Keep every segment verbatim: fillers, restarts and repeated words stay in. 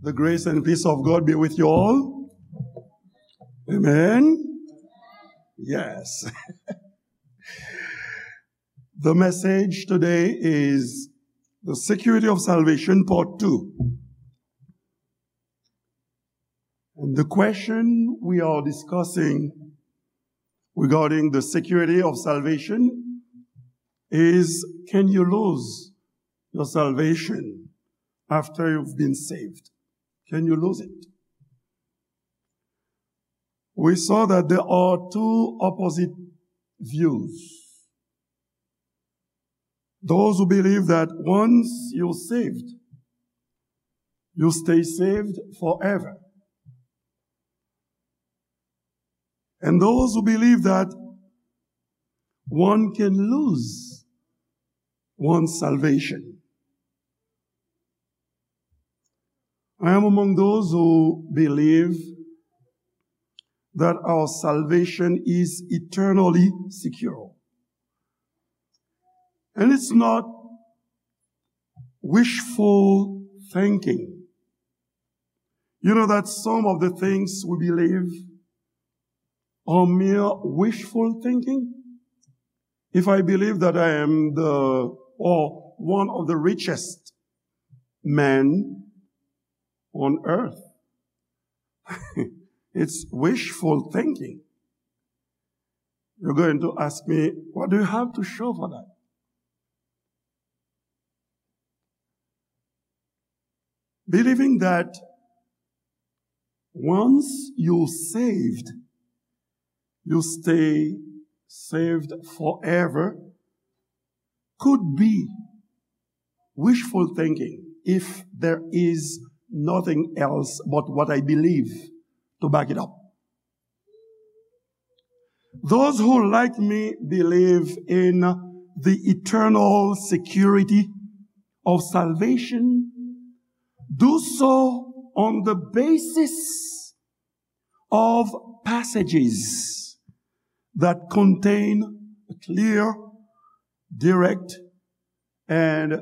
The grace and peace of God be with you all. Amen. Yes. The message today is the security of salvation, part two. And the question we are discussing regarding the security of salvation is, can you lose your salvation after you've been saved? Can you lose it? We saw that there are two opposite views. Those who believe that once you're saved, you stay saved forever. And those who believe that one can lose one's salvation. I am among those who believe that our salvation is eternally secure. And it's not wishful thinking. You know that some of the things we believe are mere wishful thinking? If I believe that I am the, or one of the richest men on earth, it's wishful thinking. You're going to ask me, what do you have to show for that? Believing that once you're saved, you stay saved forever could be wishful thinking if there is nothing else but what I believe to back it up. Those who, like me, believe in the eternal security of salvation do so on the basis of passages that contain a clear, direct, and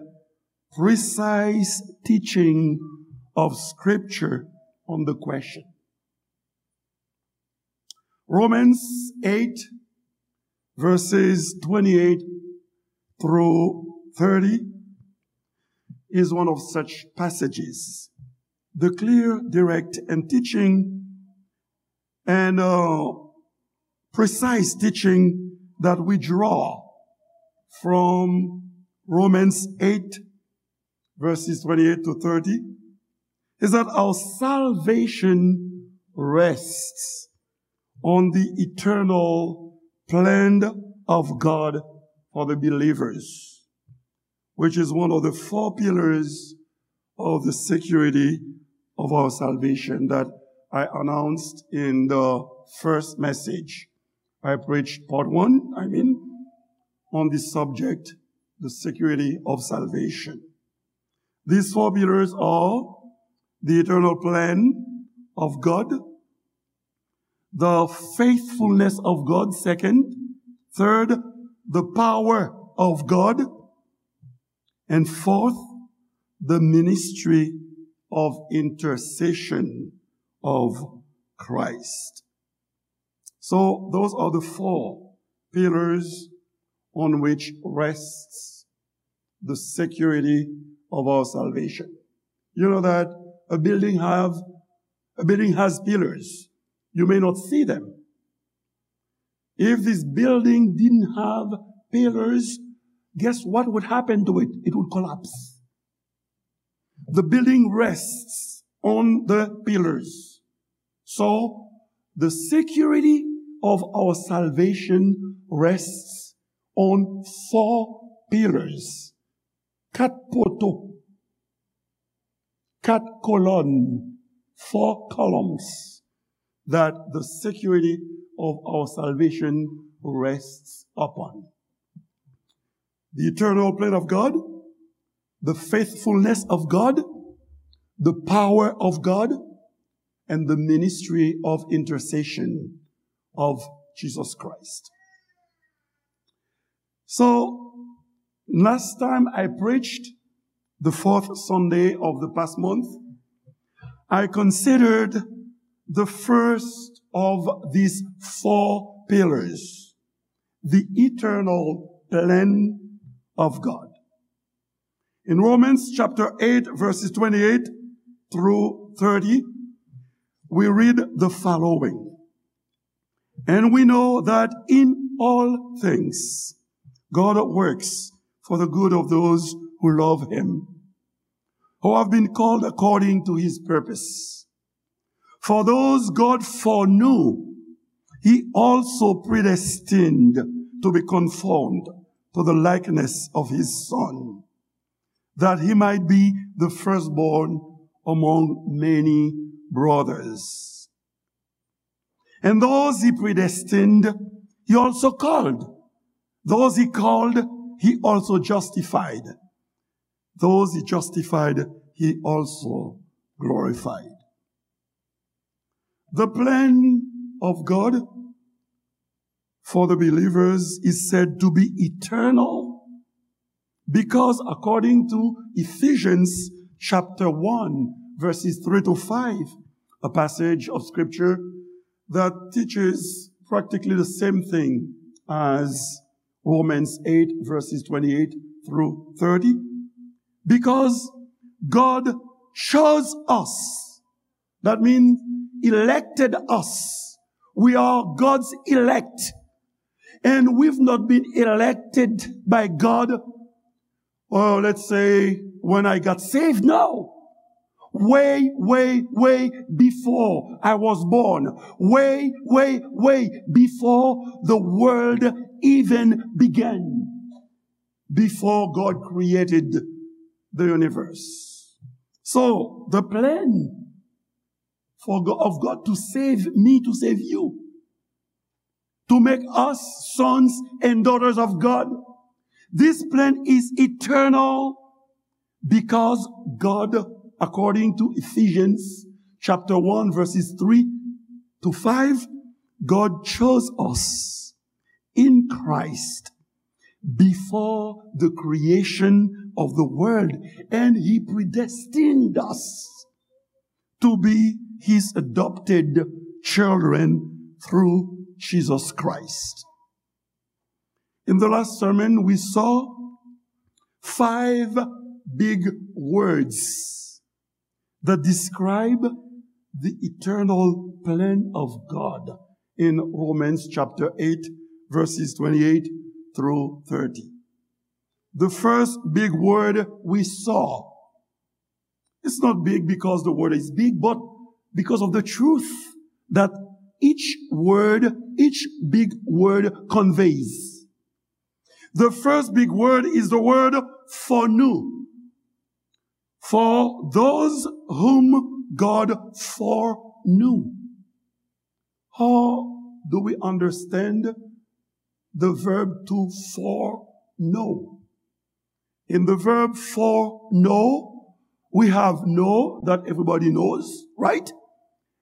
precise teaching of Scripture on the question. Romans eight, verses twenty-eight through thirty, is one of such passages. The clear, direct, and teaching and, uh, precise teaching that we draw from Romans eight, verses twenty-eight to thirty, is that our salvation rests on the eternal plan of God for the believers, which is one of the four pillars of the security of our salvation that I announced in the first message. I preached part one, I mean, on the subject, the security of salvation. These four pillars are the eternal plan of God, the faithfulness of God, second, third, the power of God, and fourth, the ministry of intercession of Christ. So those are the four pillars on which rests the security of our salvation. You know that a building have, a building has pillars. You may not see them. If this building didn't have pillars, guess what would happen to it? It would collapse. The building rests on the pillars. So, the security of our salvation rests on four pillars. Kat poto, kat kolòn, four columns that the security of our salvation rests upon. The eternal plan of God, the faithfulness of God, the power of God, and the ministry of intercession of Jesus Christ. So, last time I preached, the fourth Sunday of the past month, I considered the first of these four pillars, the eternal plan of God. In Romans chapter eight, verses twenty-eight through thirty, we read the following. And we know that in all things, God works for the good of those who love him, who have been called according to his purpose. For those God foreknew, he also predestined to be conformed to the likeness of his Son, that he might be the firstborn among many brothers. And those he predestined, he also called. Those he called, he also justified. Those he justified, he also glorified. The plan of God for the believers is said to be eternal because, according to Ephesians chapter one, verses three to five, a passage of scripture that teaches practically the same thing as Romans eight, verses twenty-eight through thirty, because God chose us. That means elected us. We are God's elect. And we've not been elected by God, oh, let's say, when I got saved. No. Way, way, way before I was born. Way, way, way before the world even began. Before God created the universe. So, the plan for God, of God to save me, to save you, to make us sons and daughters of God. This plan is eternal because God, according to Ephesians chapter one, verses three to five, God chose us in Christ before the creation of the world, and he predestined us to be his adopted children through Jesus Christ. In the last sermon, we saw five big words that describe the eternal plan of God in Romans chapter eight, verses twenty-eight through thirty. The first big word we saw, it's not big because the word is big, but because of the truth that each word, each big word conveys. The first big word is the word foreknew. For those whom God foreknew. How do we understand the verb to foreknow? In the verb foreknow, we have know that everybody knows, right?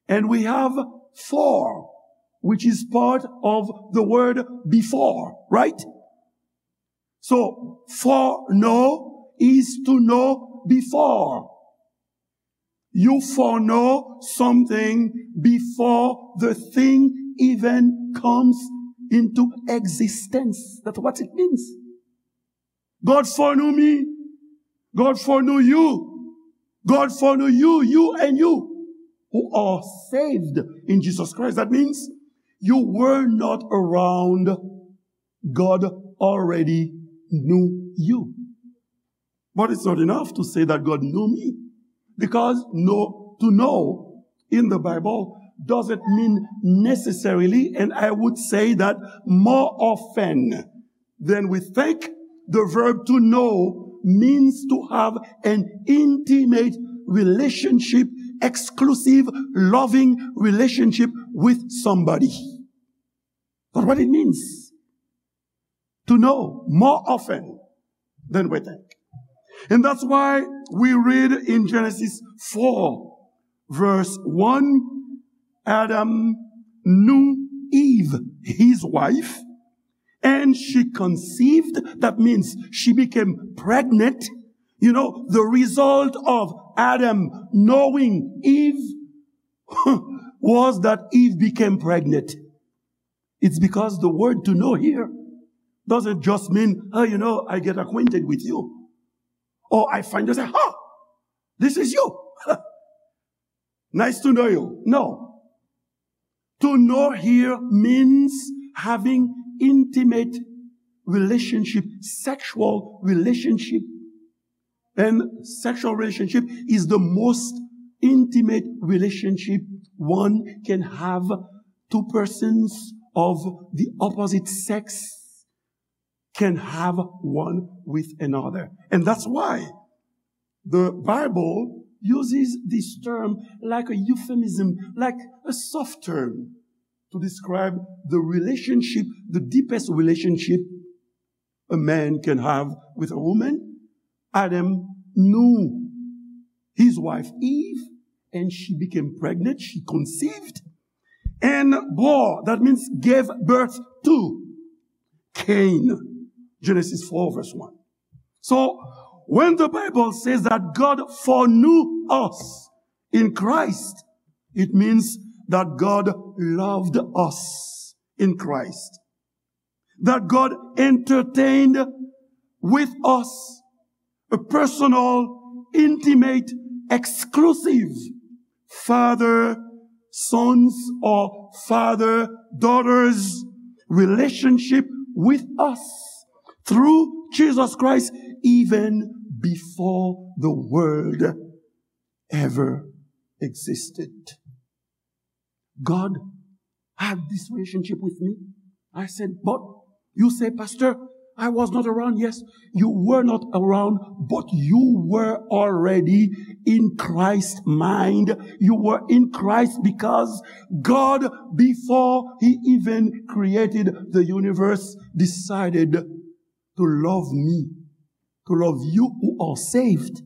And we have fore, which is part of the word before, right? So, foreknow is to know before. You foreknow something before the thing even comes into existence. That's what it means. God foreknew me. God foreknew you. God foreknew you, you and you who are saved in Jesus Christ. That means you were not around. God already knew you. But it's not enough to say that God knew me, because know, to know in the Bible doesn't mean necessarily, and I would say that more often than we think, the verb to know means to have an intimate relationship, exclusive, loving relationship with somebody. That's what it means to know more often than we think. And that's why we read in Genesis four, verse one, Adam knew Eve, his wife, and she conceived. That means she became pregnant. You know, the result of Adam knowing Eve was that Eve became pregnant. It's because the word to know here doesn't just mean, oh, you know, I get acquainted with you. Or I find you say, oh, this is you. Nice to know you. No. To know here means having intimate relationship, sexual relationship. And sexual relationship is the most intimate relationship one can have. Two persons of the opposite sex can have one with another. And that's why the Bible uses this term like a euphemism, like a soft term to describe the relationship, the deepest relationship a man can have with a woman. Adam knew his wife Eve, and she became pregnant, she conceived, and bore, that means gave birth to Cain. Genesis four, verse one. So, when the Bible says that God foreknew us in Christ, it means that God loved us in Christ. That God entertained with us a personal, intimate, exclusive father, sons, or father, daughters relationship with us through Jesus Christ, even before the world ever existed. God had this relationship with me. I said, but you say, Pastor, I was not around. Yes, you were not around, but you were already in Christ's mind. You were in Christ because God, before he even created the universe, decided to love me, to love you who are saved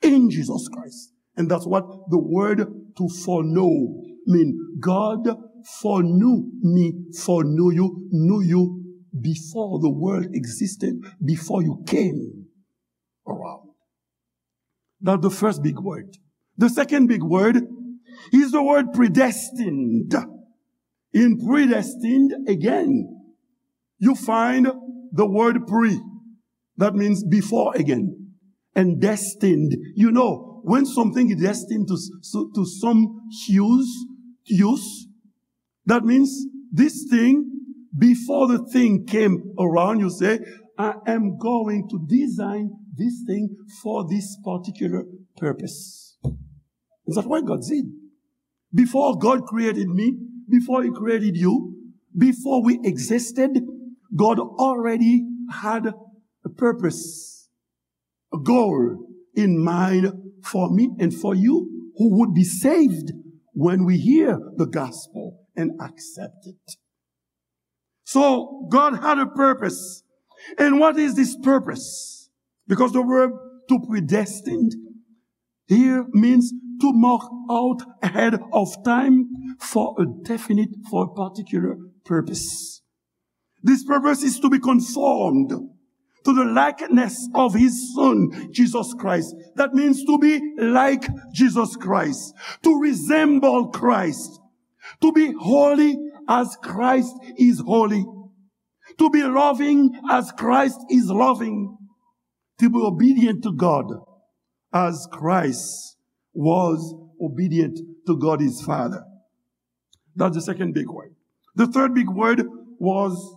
in Jesus Christ. And that's what the word to foreknow mean. God foreknew me, foreknew you, knew you before the world existed, before you came around. That's the first big word. The second big word is the word predestined. In predestined, again, you find the word pre. That means before again. And destined. You know, when something is destined to, to, to some use, use, that means this thing, before the thing came around, you say, I am going to design this thing for this particular purpose. Is that what God did? Before God created me, before he created you, before we existed, God already had a purpose, a goal in mind for me and for you who would be saved when we hear the gospel and accept it. So God had a purpose. And what is this purpose? Because the word to predestined here means to mark out ahead of time for a definite, for a particular purpose. This purpose is to be conformed to the likeness of his son, Jesus Christ. That means to be like Jesus Christ, to resemble Christ, to be holy as Christ is holy, to be loving as Christ is loving, to be obedient to God as Christ was obedient to God his Father. That's the second big word. The third big word was,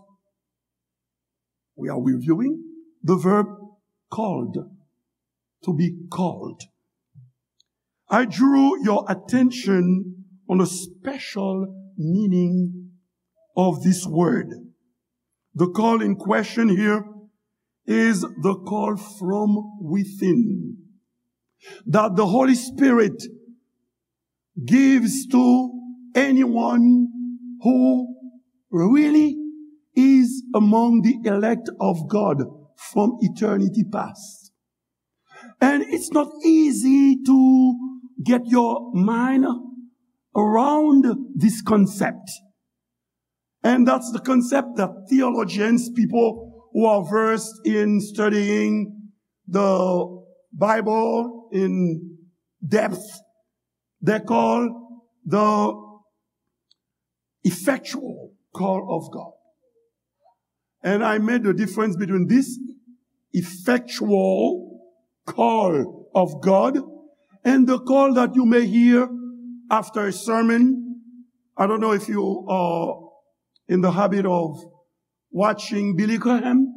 we are reviewing the verb called, to be called. I drew your attention on a special meaning of this word. The call in question here is the call from within that the Holy Spirit gives to anyone who really is among the elect of God from eternity past. And it's not easy to get your mind around this concept. And that's the concept that theologians, people who are versed in studying the Bible in depth, they call the effectual call of God. And I made the difference between this effectual call of God and the call that you may hear after a sermon. I don't know if you are in the habit of watching Billy Graham.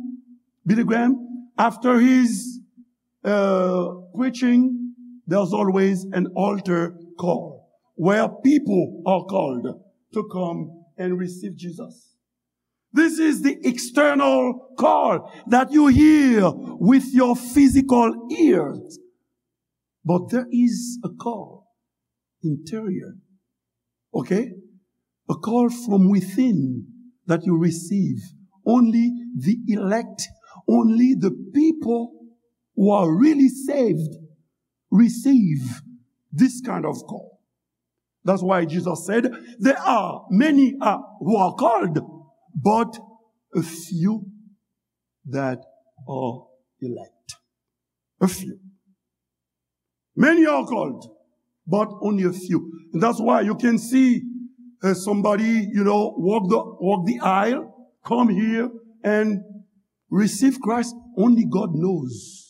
Billy Graham, after his uh, preaching, there's always an altar call where people are called to come and receive Jesus. This is the external call that you hear with your physical ears. But there is a call interior, okay? A call from within that you receive. Only the elect, only the people who are really saved receive this kind of call. That's why Jesus said, there are many uh, who are called, but a few that are elect. A few. Many are called, but only a few. And that's why you can see uh, somebody, you know, walk the, walk the aisle, come here and receive Christ. Only God knows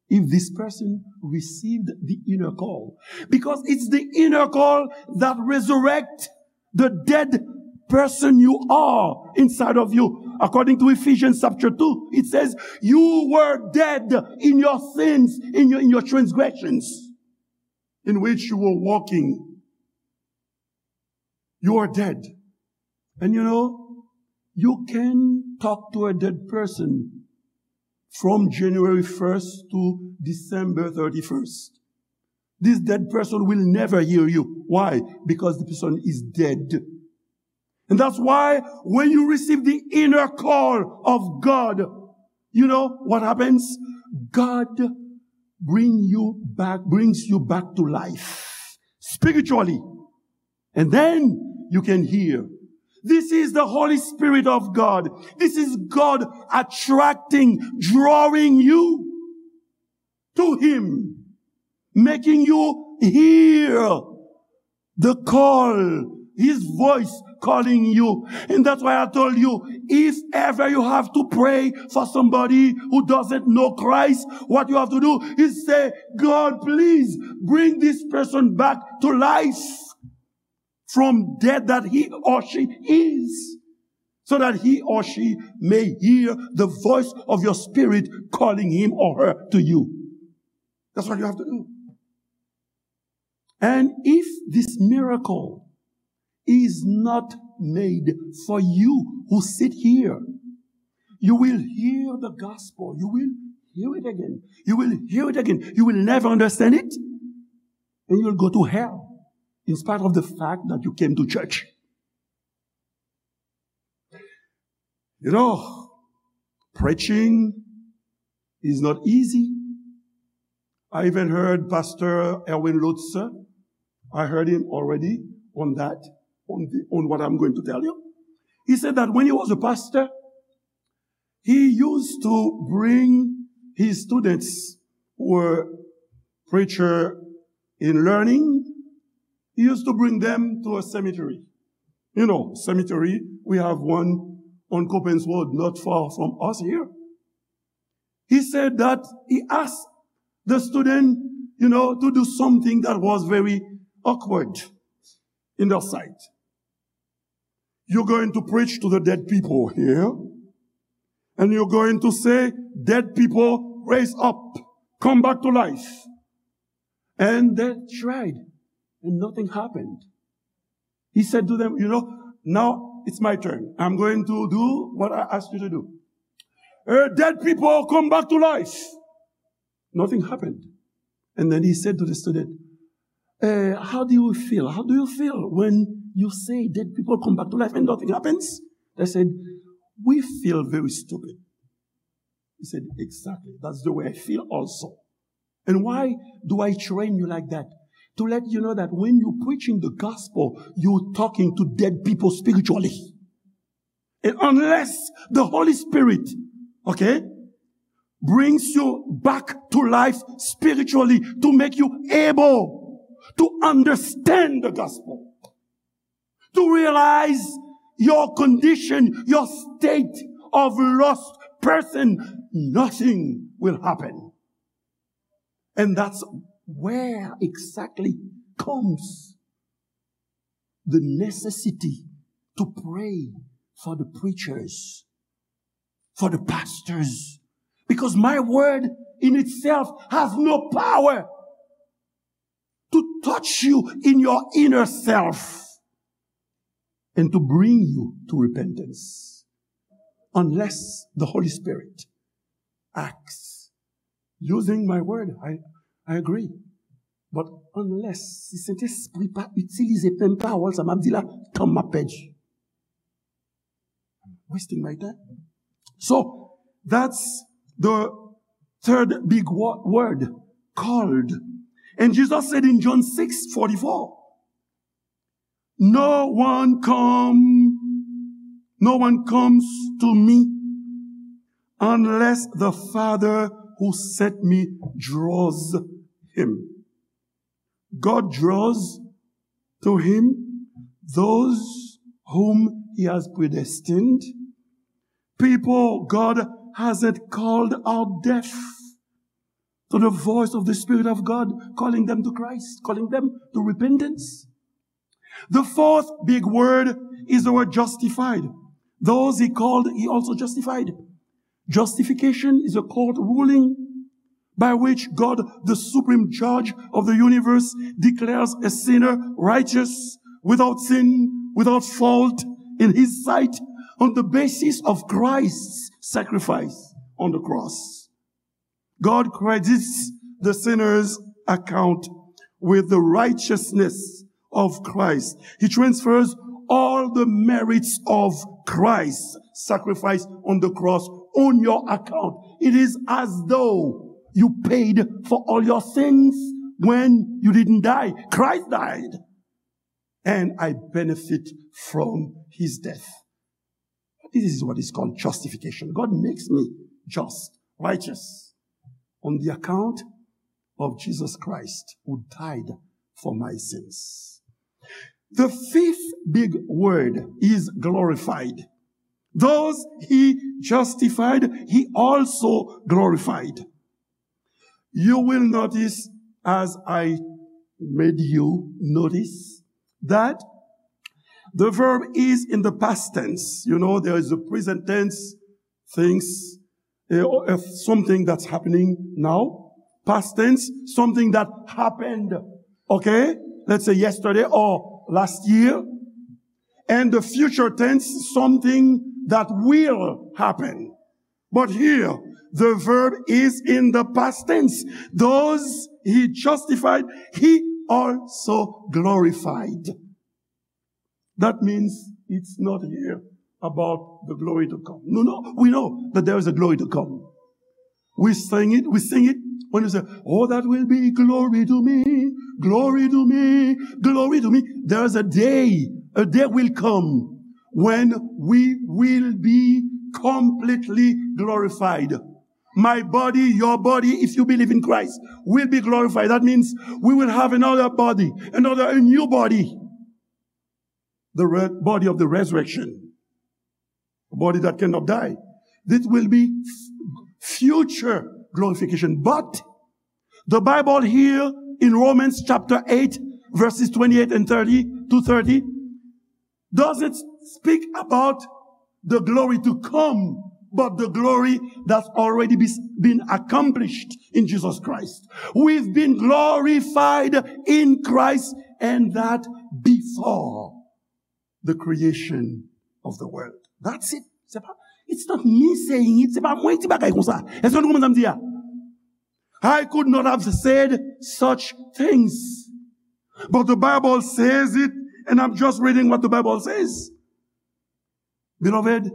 if this person received the inner call. Because it's the inner call that resurrects the dead person you are inside of you. According to Ephesians chapter two, it says, you were dead in your sins, in your, in your transgressions, in which you were walking. You are dead. And you know, you can talk to a dead person from January first to December thirty-first. This dead person will never hear you. Why? Because the person is dead. And that's why when you receive the inner call of God, you know what happens? God bring you back, brings you back to life spiritually. And then you can hear. This is the Holy Spirit of God. This is God attracting, drawing you to Him, making you hear the call, His voice calling you. And that's why I told you, if ever you have to pray for somebody who doesn't know Christ, what you have to do is say, God, please bring this person back to life from death that he or she is, so that he or she may hear the voice of your spirit calling him or her to you. That's what you have to do. And if this miracle is not made for you who sit here, you will hear the gospel. You will hear it again. You will hear it again. You will never understand it. And you will go to hell in spite of the fact that you came to church. You know, preaching is not easy. I even heard Pastor Erwin Lutzer. I heard him already on that, on, the, on what I'm going to tell you. He said that when he was a pastor, he used to bring his students who were preacher in learning, he used to bring them to a cemetery. You know, cemetery, we have one on Coppens Road, not far from us here. He said that he asked the student, you know, to do something that was very awkward in their sight. You're going to preach to the dead people here, and you're going to say, dead people, raise up, come back to life. And they tried, and nothing happened. He said to them, you know, now it's my turn. I'm going to do what I asked you to do. Uh, dead people, come back to life. Nothing happened. And then he said to the student, uh, how do you feel? How do you feel when you say dead people come back to life and nothing happens? They said, we feel very stupid. He said, exactly. That's the way I feel also. And why do I train you like that? To let you know that when you're preaching the gospel, you're talking to dead people spiritually. And unless the Holy Spirit, okay, brings you back to life spiritually to make you able to understand the gospel, to realize your condition, your state of lost person. Nothing will happen. And that's where exactly comes the necessity to pray for the preachers, for the pastors, because my word in itself has no power to touch you in your inner self and to bring you to repentance, unless the Holy Spirit acts using my word. I, I agree. But unless, si Sentespri pa itilize menm pawòl sa m ap di la, tan m ap pèdi. I'm wasting my time. So, that's the third big wo- word, called. And Jesus said in John six forty-four, "No one come, no one comes to me unless the Father who sent me draws him." God draws to him those whom he has predestined. People God hasn't called are deaf to the voice of the Spirit of God calling them to Christ, calling them to repentance. The fourth big word is the word justified. Those he called, he also justified. Justification is a court ruling by which God, the supreme judge of the universe, declares a sinner righteous, without sin, without fault in his sight, on the basis of Christ's sacrifice on the cross. God credits the sinner's account with the righteousness of Christ. He transfers all the merits of Christ's sacrifice on the cross on your account. It is as though you paid for all your sins when you didn't die. Christ died, and I benefit from his death. This is what is called justification. God makes me just, righteous, on the account of Jesus Christ who died for my sins. The fifth big word is glorified. Those he justified, he also glorified. You will notice, as I made you notice, that the verb is in the past tense. You know, there is a present tense, things, eh, or, eh, something that's happening now. Past tense, something that happened, okay? Let's say yesterday or last year. And the future tense, something that will happen. But here, the verb is in the past tense. Those he justified, he also glorified. That means it's not here about the glory to come. No, no, we know that there is a glory to come. We sing it, we sing it when we say, "Oh, that will be glory to me, glory to me, glory to me." There is a day, a day will come when we will be completely glorified. My body, your body, if you believe in Christ, will be glorified. That means we will have another body, another, a new body. The re- body of the resurrection, a body that cannot die. This will be f- future glorification. But the Bible here in Romans chapter eight, verses twenty-eight and thirty to thirty, doesn't speak about the glory to come, but the glory that's already be- been accomplished in Jesus Christ. We've been glorified in Christ, and that before the creation of the world. That's it. Se pa, it's not me saying it. Se pa mwen ki di bagay konsa. Èske nou konprann sa m di a? I could not have said such things. But the Bible says it, and I'm just reading what the Bible says. Beloved,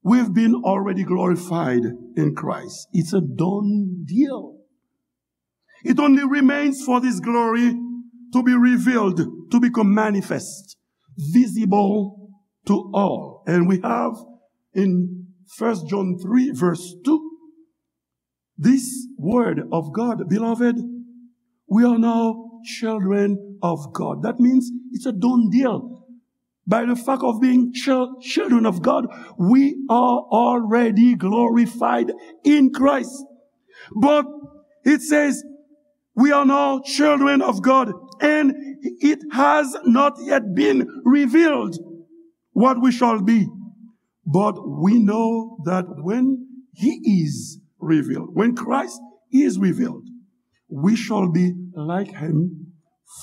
we've been already glorified in Christ. It's a done deal. It only remains for this glory to be revealed, to become manifest, visible to all. And we have in First John three, verse two, This word of God, beloved, we are now children of God. That means it's a done deal. By the fact of being chil- children of God, we are already glorified in Christ. But it says, we are now children of God, and it has not yet been revealed what we shall be. But we know that when he is revealed, when Christ is revealed, we shall be like him,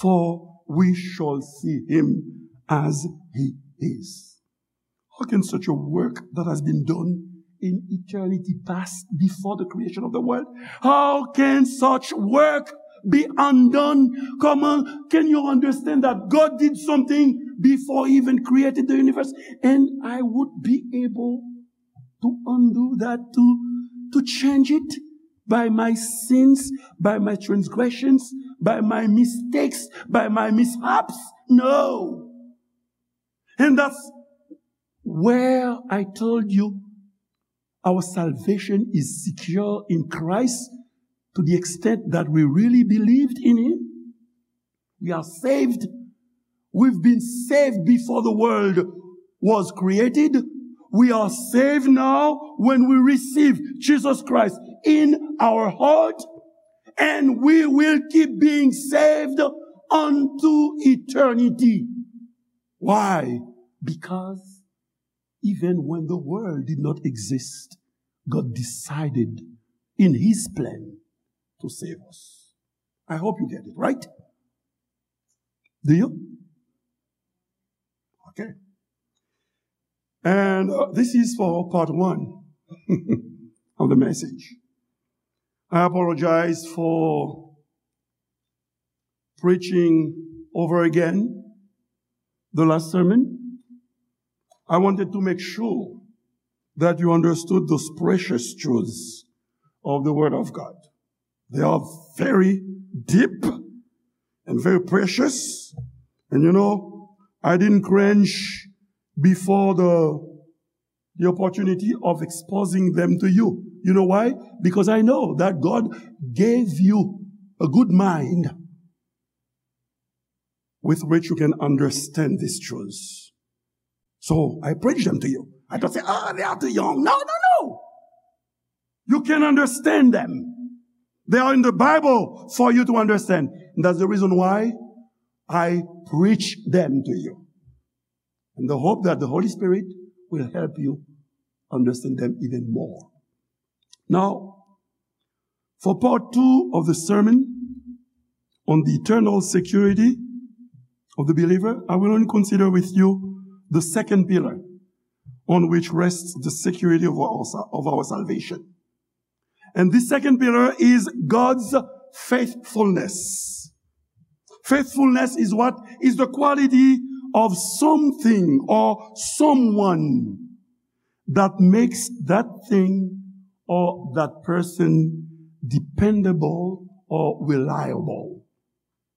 for we shall see him as he is. How can such a work that has been done in eternity past, before the creation of the world, how can such work be undone? Come on, can you understand that God did something before he even created the universe? And I would be able to undo that, to, to change it by my sins, by my transgressions, by my mistakes, by my mishaps? No. And that's where I told you our salvation is secure in Christ to the extent that we really believed in him. We are saved. We've been saved before the world was created. We are saved now when we receive Jesus Christ in our heart, and we will keep being saved unto eternity. Why? Because even when the world did not exist, God decided in his plan to save us. I hope you get it, right? Do you? Okay. And uh, this is for part one of the message. I apologize for preaching over again the last sermon. I wanted to make sure that you understood those precious truths of the Word of God. They are very deep and very precious. And you know, I didn't cringe before the, the opportunity of exposing them to you. You know why? Because I know that God gave you a good mind with which you can understand these truths. So I preach them to you. I don't say, "Ah, they are too young." No, no, no. You can understand them. They are in the Bible for you to understand. And that's the reason why I preach them to you. And the hope that the Holy Spirit will help you understand them even more. Now, for part two of the sermon on the eternal security of the believer, I will only consider with you the second pillar on which rests the security of our, of our salvation. And this second pillar is God's faithfulness. Faithfulness is what? Is the quality of something or someone that makes that thing or that person dependable or reliable.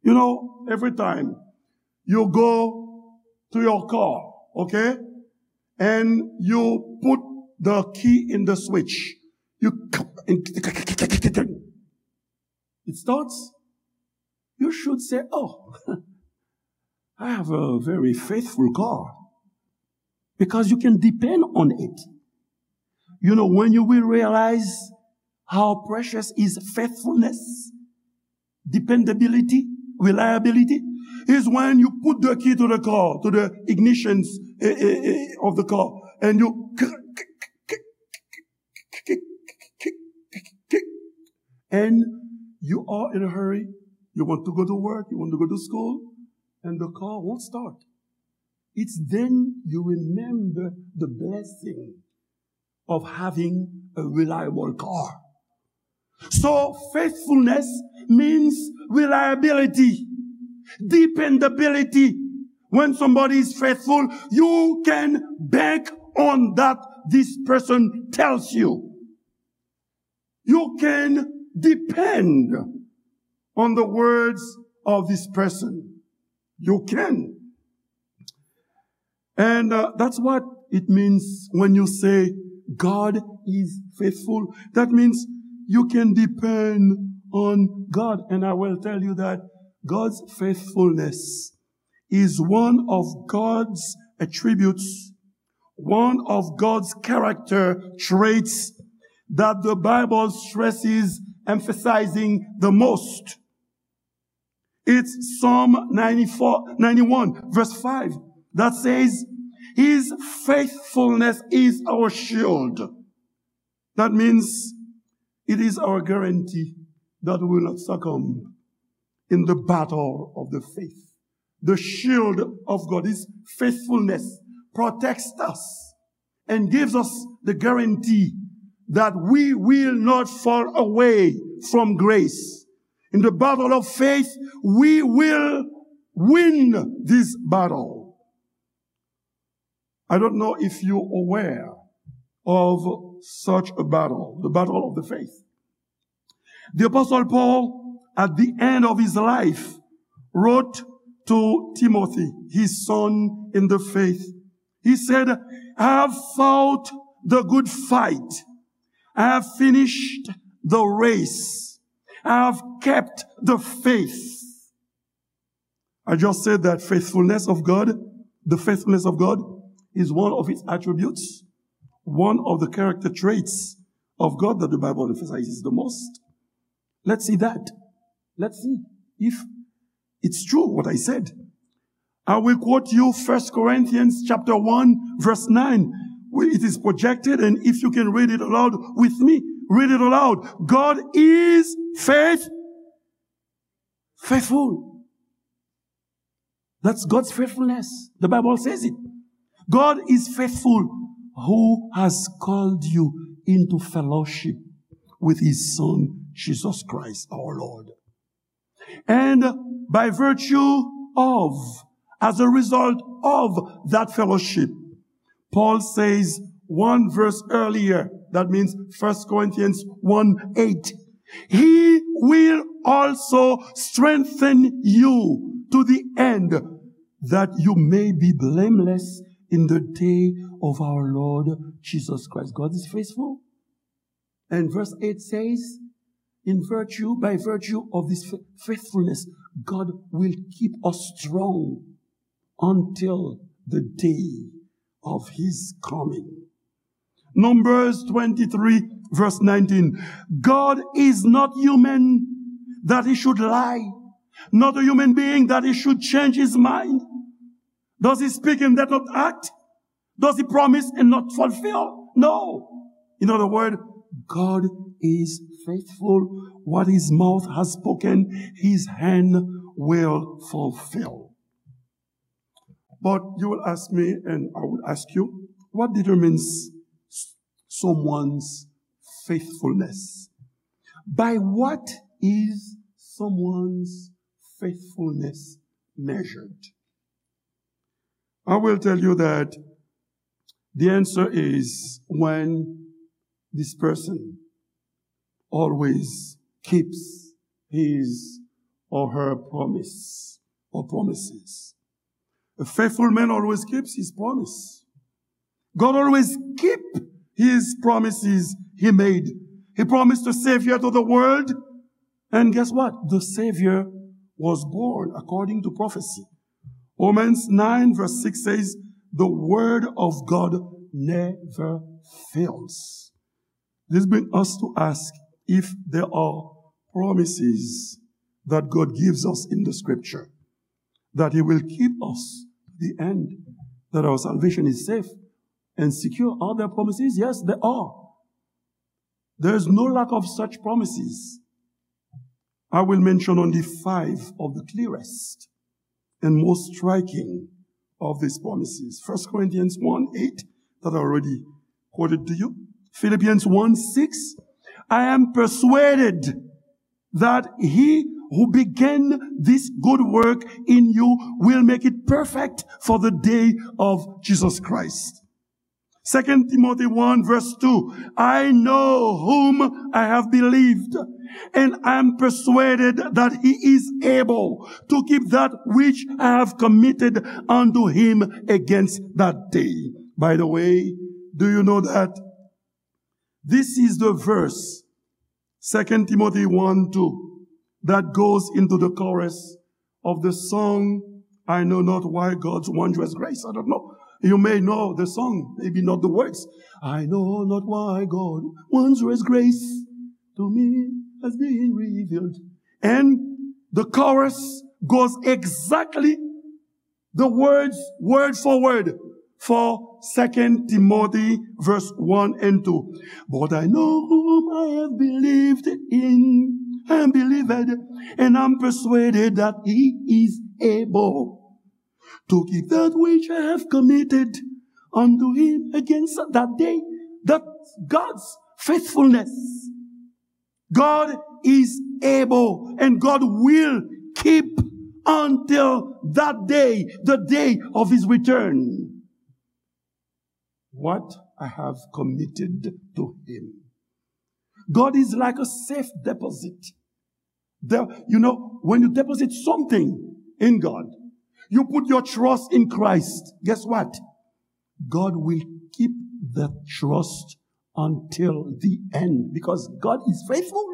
You know, every time you go to your car, okay, and you put the key in the switch, you and it starts, you should say, "Oh, I have a very faithful car," because you can depend on it. You know, when you will realize how precious is faithfulness, dependability, reliability, is when you put the key to the car, to the ignitions eh, eh, eh, of the car, and you and you are in a hurry. You want to go to work, you want to go to school, and the car won't start. It's then you remember the blessing of having a reliable car. So faithfulness means reliability, dependability. When somebody is faithful, you can bank on that this person tells you. You can depend on the words of this person. You can. And uh, that's what it means when you say God is faithful. That means you can depend on God. And I will tell you that God's faithfulness is one of God's attributes, one of God's character traits that the Bible stresses emphasizing the most. It's Psalm ninety-four, ninety-one, verse five, that says, "His faithfulness is our shield." That means it is our guarantee that we will not succumb in the battle of the faith. The shield of God, His faithfulness, protects us and gives us the guarantee that we will not fall away from grace. In the battle of faith, we will win this battle. I don't know if you're aware of such a battle, the battle of the faith. The Apostle Paul, at the end of his life, wrote to Timothy, his son in the faith. He said, "I have fought the good fight. I have finished the race. I have kept the faith." I just said that faithfulness of God, the faithfulness of God is one of its attributes, one of the character traits of God that the Bible emphasizes the most. Let's see that. Let's see if it's true what I said. I will quote you First Corinthians chapter one, verse nine. We- It is projected, and if you can read it aloud with me, read it aloud. God is faith, faithful. That's God's faithfulness. The Bible says it. God is faithful, who has called you into fellowship with his Son, Jesus Christ, our Lord. And by virtue of, as a result of that fellowship, Paul says one verse earlier, that means First Corinthians one eight, "He will also strengthen you to the end that you may be blameless in the day of our Lord Jesus Christ." God is faithful. And verse eight says, "In virtue, by virtue of this fa- faithfulness, God will keep us strong until the day of his coming." Numbers twenty-three, verse nineteen. God is not human that he should lie, not a human being that he should change his mind. Does he speak and does not act? Does he promise and not fulfill? No. In other words, God is faithful. What his mouth has spoken, his hand will fulfill. But you will ask me, and I will ask you, what determines s- someone's faithfulness? By what is someone's faithfulness measured? I will tell you that the answer is when this person always keeps his or her promise or promises. A faithful man always keeps his promise. God always keep his promises he made. He promised a Savior to the world. And guess what? The Savior was born according to prophecy. Romans nine verse six says, "The word of God never fails." This brings us to ask if there are promises that God gives us in the scripture, that he will keep us to the end, that our salvation is safe and secure. Are there promises? Yes, there are. There is no lack of such promises. I will mention only five of the clearest and most striking of these promises. First Corinthians one eight, that I already quoted to you. Philippians one six, "I am persuaded that he who began this good work in you will make it perfect for the day of Jesus Christ." Second Timothy one verse two, "I know whom I have believed, and I am persuaded that he is able to keep that which I have committed unto him against that day." By the way, do you know that this is the verse Second Timothy one two, that goes into the chorus of the song, I know not why God's wondrous grace. I don't know. You may know the song, maybe not the words. I know not why God wondrous grace to me has been revealed. And the chorus goes exactly the words, word for word, for Second Timothy verse one and two. But I know whom I have believed in, I am believed, and I'm persuaded that he is able to keep that which I have committed unto him against that day. That's God's faithfulness. God is able and God will keep until that day, the day of his return, what I have committed to him. God is like a safe deposit. The, you know, when you deposit something in God, you put your trust in Christ, guess what? God will keep that trust until the end because God is faithful.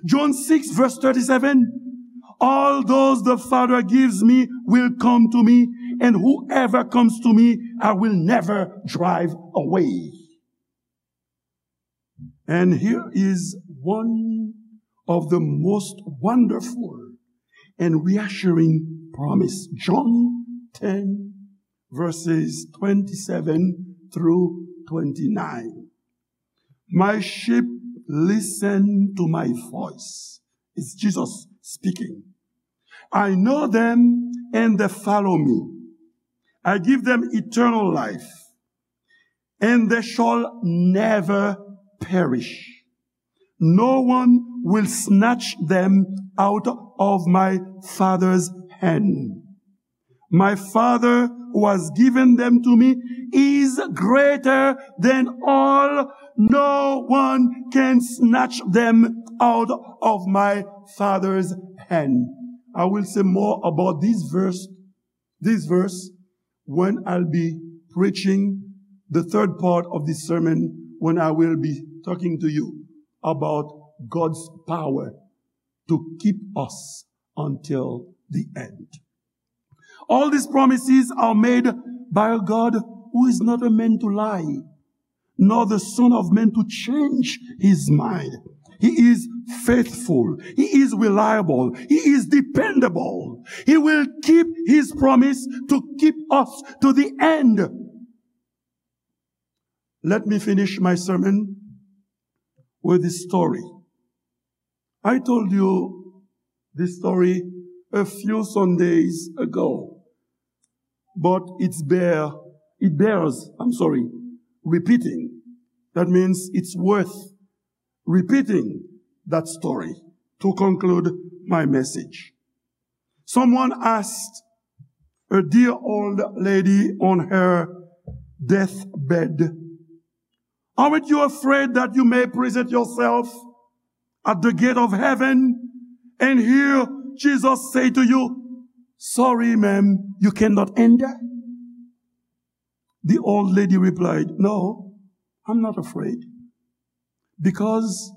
John six verse thirty-seven, all those the Father gives me will come to me, and whoever comes to me, I will never drive away. And here is one of the most wonderful and reassuring promise. John ten verses twenty-seven through twenty-nine. My sheep listen to my voice. It's Jesus speaking. I know them and they follow me. I give them eternal life, and they shall never perish. No one will snatch them out of my Father's hand. My Father who has given them to me is greater than all. No one can snatch them out of my Father's hand. I will say more about this verse, this verse when I'll be preaching the third part of this sermon, when I will be talking to you about God's power to keep us until the end. All these promises are made by a God who is not a man to lie, nor the Son of Man to change his mind. He is faithful. He is reliable. He is dependable. He will keep his promise to keep us to the end. Let me finish my sermon with this story. I told you this story a few Sundays ago, but it's bear, it bears, I'm sorry, repeating. That means it's worth repeating that story to conclude my message. Someone asked a dear old lady on her deathbed, aren't you afraid that you may present yourself at the gate of heaven and hear Jesus say to you, sorry, ma'am, you cannot enter? The old lady replied, no, I'm not afraid, because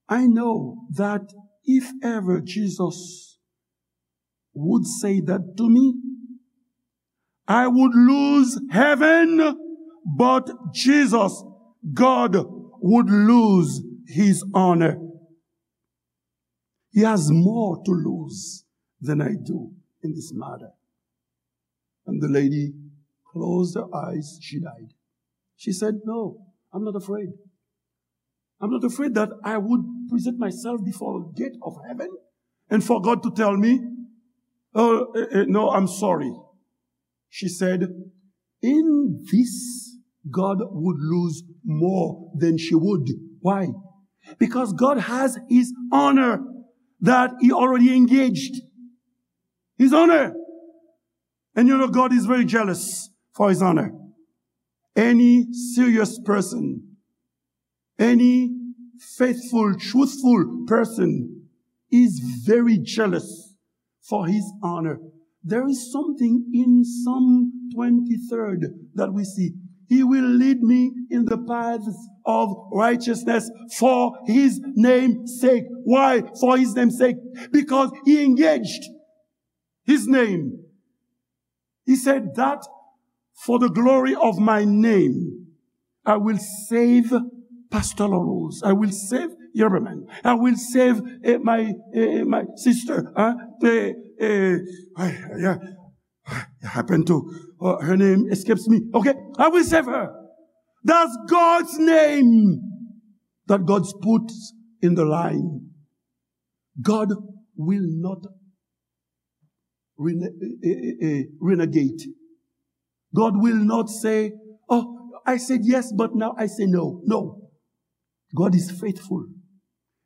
I know that if ever Jesus would say that to me, I would lose heaven, but Jesus, God, would lose his honor. He has more to lose than I do in this matter. And the lady closed her eyes, she died. She said, no, I'm not afraid. I'm not afraid that I would present myself before the gate of heaven and for God to tell me, oh, eh, eh, no, I'm sorry. She said, in this, God would lose more than she would. Why? Because God has his honor that he already engaged. His honor. And you know, God is very jealous for his honor. Any serious person, any faithful, truthful person is very jealous for his honor. There is something in Psalm twenty-third that we see. He will lead me in the paths of righteousness for his name's sake. Why? For his name's sake. Because he engaged his name. He said that for the glory of my name, I will save Pastor Larose. I will save Yerbaman. I will save uh, my uh, my sister. Huh? Uh, uh, I, yeah. It happened to uh, her name escapes me. Okay, I will save her. That's God's name that God puts in the line. God will not rene- eh, eh, eh, renegade. God will not say, "Oh, I said yes, but now I say no." No. God is faithful.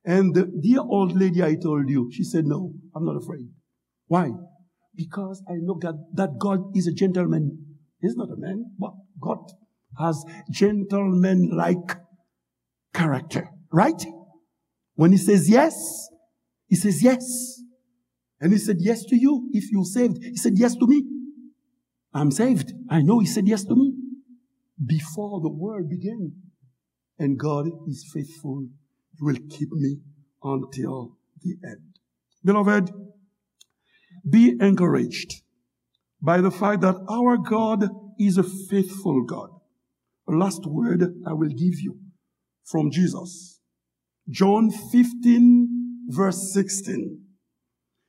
And the dear old lady I told you, she said, "No, I'm not afraid." Why? Because I know God, that God is a gentleman. He's not a man, but God has gentleman-like character, right? When he says yes, he says yes. And he said yes to you if you're saved. He said yes to me. I'm saved. I know he said yes to me before the world began. And God is faithful. He will keep me until the end. Beloved, be encouraged by the fact that our God is a faithful God. A last word I will give you from Jesus. John fifteen, verse sixteen.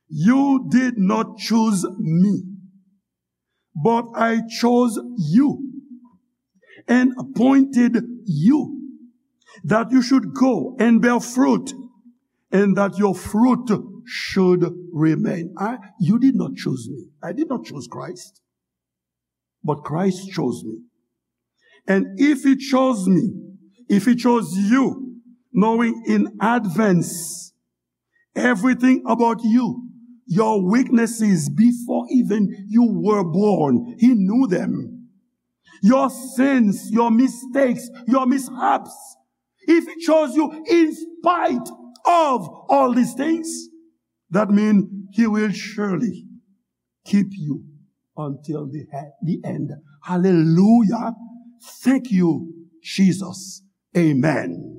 You did not choose me, but I chose you and appointed you that you should go and bear fruit and that your fruit should remain. I, you did not choose me. I did not choose Christ, but Christ chose me. And if he chose me, if he chose you, knowing in advance everything about you, your weaknesses before even you were born, he knew them. Your sins, your mistakes, your mishaps. If he chose you in spite of all these things, that means he will surely keep you until the, the end. Hallelujah. Thank you, Jesus. Amen.